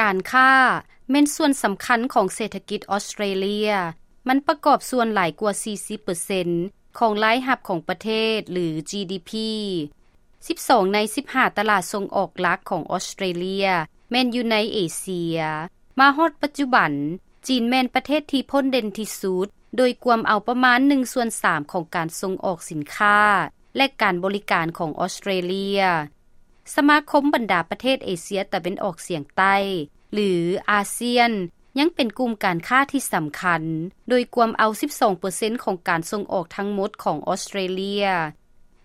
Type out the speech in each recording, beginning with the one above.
ການຄ້າແມ່ນສ່ວນສຳຄັນຂອງເສດຖະກິດອອສເຕຣເລຍ. ມັນປະກອບສ່ວນຫຼາຍກວ່າສີ່ສິບເປີເຊັນຂອງລາຍຮັບຂອງປະເທດ ຫຼື ຈີດີພີ. ສິບສອງໃນສິບຫ້າຕະຫຼາດສົ່ງອອກຫຼັກຂອງອອສເຕຣເລຍແມ່ນຢູ່ໃນເອເຊຍ. ມາຮອດປັດຈຸບັນ, ຈີນແມ່ນປະເທດທີ່ພົ້ນເດັ່ນທີ່ສຸດ ໂດຍກວມເອົາປະມານໜຶ່ງສ່ວນສາມຂອງການສົ່ງອອກສິນຄ້າ ແລະ ການບໍລິການຂອງອອສເຕຣເລຍ. ສະມາຄົມບັນດາປະເທດເອເຊຍຕາເວັນອອກສຽງໃຕ້ ຫຼື ອາຊຽນ ຍັງເປັນກຸ່ມການຄ້າທີ່ສຳຄັນ ໂດຍກວມເອົາສິບສອງເປີເຊັນຂອງການສົ່ງອອກທັງໝົດຂອງອອສເຕຣເລຍ.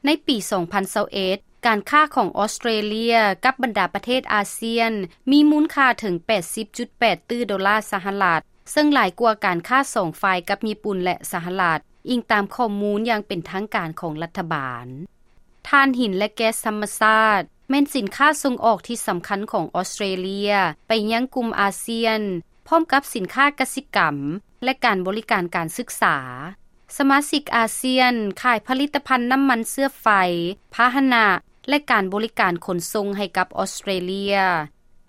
ໃນປີສອງພັນຊາວເອັດ ການຄ້າຂອງອອສເຕຣເລຍກັບບັນດາປະເທດອາຊຽນ ມີມູນຄ່າເຖິງແປດສິບຈຸດແປດຕື້ໂດລາສະຫະລັດ, ເຊິ່ງຫຼາຍກວ່າການຄ້າສອງຝ່າຍກັບຍີ່ປຸ່ນ ແລະ ສະຫະລັດ, ອີງຕາມຂໍ້ມູນຢ່າງເປັນທາງການຂອງລັດຖະບານ. ຖ່ານຫີນ ແລະ ແກັສທຳມະຊາດ ແມ່ນສິນຄ້າສົ່ງອອກທີ່ສຳຄັນຂອງອອສເຕຣເລຍໄປຍັງກຸ່ມອາຊຽນ, ພ້ອມກັບສິນຄ້າກະສິກຳ ແລະ ການບໍລິການການສຶກສາ. ສະມາຊິກອາຊຽນຂາຍຜະລິດຕະພັນນ້ຳມັນເຊື້ອໄຟ, ພາຫະນະ ແລະ ການບໍລິການຂົນສົ່ງໃຫ້ກັບອອສເຕຣເລຍ.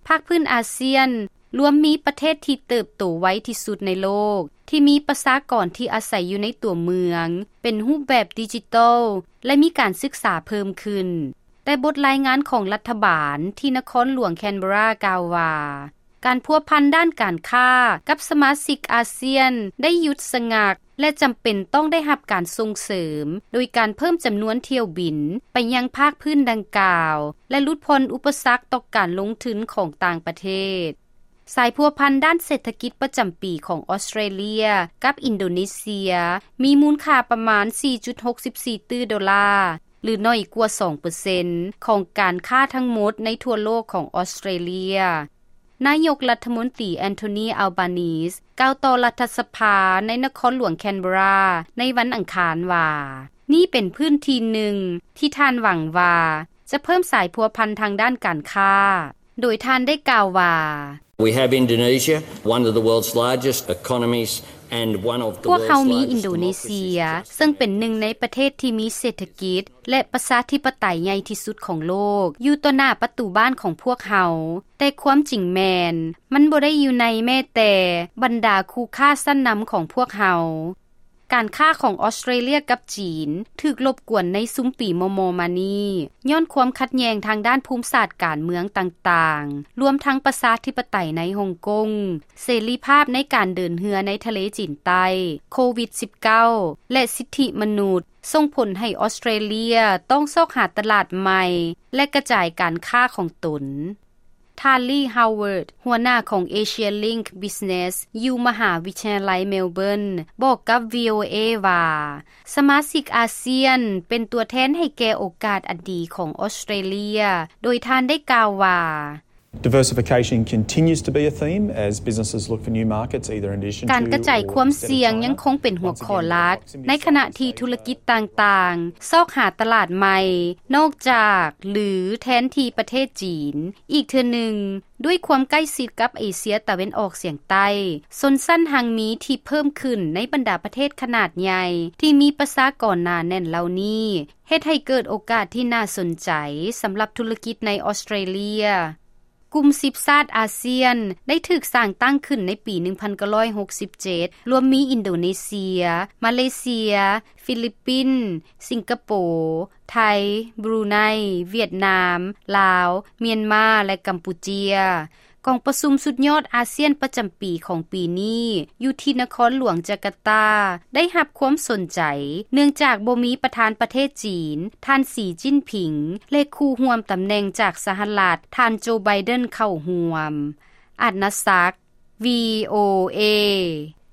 ພາກພື້ນອາຊຽນລວມມີປະເທດທີ່ເຕີບໂຕໄວທີ່ສຸດໃນໂລກ, ທີ່ມີປະຊາກອນທີ່ອາໄສຢູ່ໃນຕົວເມືອງເປັນຮູບແບບດິຈິຕອລ ແລະ ມີການສຶກສາເພີ່ມຂຶ້ນ. ແຕ່ບົດລາຍງານຂອງລັດຖະບານທີ່ນະຄອນຫຼວງແຄນເບຣາກ່າວວ່າ, ການພົວພັນດ້ານການຄ້າກັບສະມາຊິກອາຊຽນໄດ້ຢຸດຊະງັກ ແລະ ຈຳເປັນຕ້ອງໄດ້ຮັບການສົ່ງເສີມ ໂດຍການເພີ່ມຈຳນວນຖ້ຽວບິນໄປຍັງພາກພື້ນດັ່ງກ່າວ ແລະ ຫຼຸດຜ່ອນອຸປະສັກຕໍ່ການລົງທຶນຂອງຕ່າງປະເທດ. ສາຍພົວພັນດ້ານເສດຖະກິດປະຈຳປີຂອງອອສເຕຣເລຍກັບອິນໂດເນເຊຍ ມີມູນຄ່າປະມານສີ່ຈຸດຫົກສິບສີ່ຕື້ໂດລາ ຫຼື ໜ້ອຍກວ່າສອງເປີເຊັນຂອງການຄ້າທັງໝົດໃນທົ່ວໂລກຂອງອອສເຕຣເລຍ. ນາຍົກລັດຖະມົນຕີ ແອນໂທນີ ອາລບານີສ ກ່າວຕໍ່ລັດຖະສະພາໃນນະຄອນຫຼວງແຄນເບຣາໃນວັນອັງຄານວ່າ, ນີ້ເປັນພື້ນທີ່ໜຶ່ງທີ່ທ່ານຫວັງວ່າຈະເພີ່ມສາຍພົວພັນທາງດ້ານການຄ້າ, ໂດຍທ່ານໄດ້ກ່າວວ່າ, We have Indonesia, one of the world's largest economies and one of the ພວກເຮົາມີອິນໂດເນເຊຍ ເຊິ່ງເປັນໜຶ່ງໃນປະເທດທີ່ມີເສດຖະກິດ ແລະ ປະຊາທິປະໄຕໃຫຍ່ທີ່ສຸດຂອງໂລກ ຢູ່ຕໍ່ໜ້າປະຕູບ້ານຂອງພວກເຮົາ, ແຕ່ຄວາມຈິງແມ່ນ ມັນບໍ່ໄດ້ຢູ່ໃນແມ້ແຕ່ບັນດາຄູ່ຄ້າຊັ້ນນຳຂອງພວກເຮົາ. ການຄ້າຂອງອອສເຕຣເລຍກັບຈີນຖືກລົບກວນໃນຊຸມປີມໍ່ໆມານີ້ ຍ້ອນຄວາມຂັດແຍ່ງທາງດ້ານພູມສາດການເມືອງຕ່າງໆ, ລວມທັງປະຊາທິປະໄຕໃນຮົງກົງ, ເສລີພາບໃນການເດີນເຮືອໃນທະເລຈີນໃຕ້, ໂຄວິດສິບເກົ້າ ແລະ ສິດທິມະນຸດ, ສົ່ງຜົນໃຫ້ອອສເຕຣເລຍຕ້ອງຊອກຫາຕະຫຼາດໃໝ່ ແລະ ກະຈາຍການຄ້າຂອງຕົນ. ທ່ານ ລີ ຮາວເວີດ ຫົວໜ້າຂອງ Asia Link Business ຢູ່ມະຫາວິທະຍາໄລເມລເບີນ ບອກກັບ ວີໂອເອ ວ່າ, ສະມາຊິກອາຊຽນເປັນຕົວແທນໃຫ້ແກ່ໂອກາດອັນດີຂອງອອສເຕຣເລຍ, ໂດຍທ່ານໄດ້ກ່າວວ່າ, Diversification continues to be a theme as businesses look for new markets, either in addition to ການກະຈາຍຄວາມສ່ຽງຍັງຄົງເປັນຫົວຂໍ້ຫຼັກ ໃນຂະນະທີ່ທຸລະກິດຕ່າງໆຊອກຫາຕະຫຼາດໃໝ່ ນອກຈາກ ຫຼື ແທນທີ່ປະເທດຈີນ. ອີກເທື່ອໜຶ່ງ, ດ້ວຍຄວາມໃກ້ຊິດກັບເອເຊຍຕາເວັນອອກສຽງໃຕ້, ຊົນຊັ້ນຮັ່ງມີທີ່ເພີ່ມຂຶ້ນໃນບັນດາປະເທດຂະໜາດໃຫຍ່ທີ່ມີປະຊາກອນໜາແໜ້ນເຫຼົ່ານີ້ ເຮັດໃຫ້ເກີດໂອກາດທີ່ໜ້າສົນໃຈສຳລັບທຸລະກິດໃນອອສເຕຣເລຍ. ກຸ່ມສິບຊາດອາຊຽນໄດ້ຖືກສ້າງຕັ້ງຂຶ້ນໃນປີໜຶ່ງພັນເກົ້າຮ້ອຍຫົກສິບເຈັດ ລວມມີອິນໂດເນເຊຍ, ມາເລເຊຍ, ຟີລິບປິນ, ສິງກະໂປ, ໄທ, ບຣູໄນ, ຫວຽດນາມ, ລາວ, ມຽນມາ ແລະ ກຳປູເຈຍ. ກອງປະຊຸມສຸດຍອດອາຊຽນປະຈຳປີຂອງປີນີ້ ຢູ່ທີ່ນະຄອນຫຼວງຈາກາຕາ ໄດ້ຮັບຄວາມສົນໃຈ ເນື່ອງຈາກບໍ່ມີປະທານປະເທດຈີນ ທ່ານ ສີ ຈິ້ນຜິງ ແລະ ຄູ່ຮ່ວມຕຳແໜ່ງຈາກສະຫະລັດ ທ່ານ ໂຈ ໄບເດັນ ເຂົ້າຮ່ວມ. ອາດນາສັກ, ວີໂອເອ.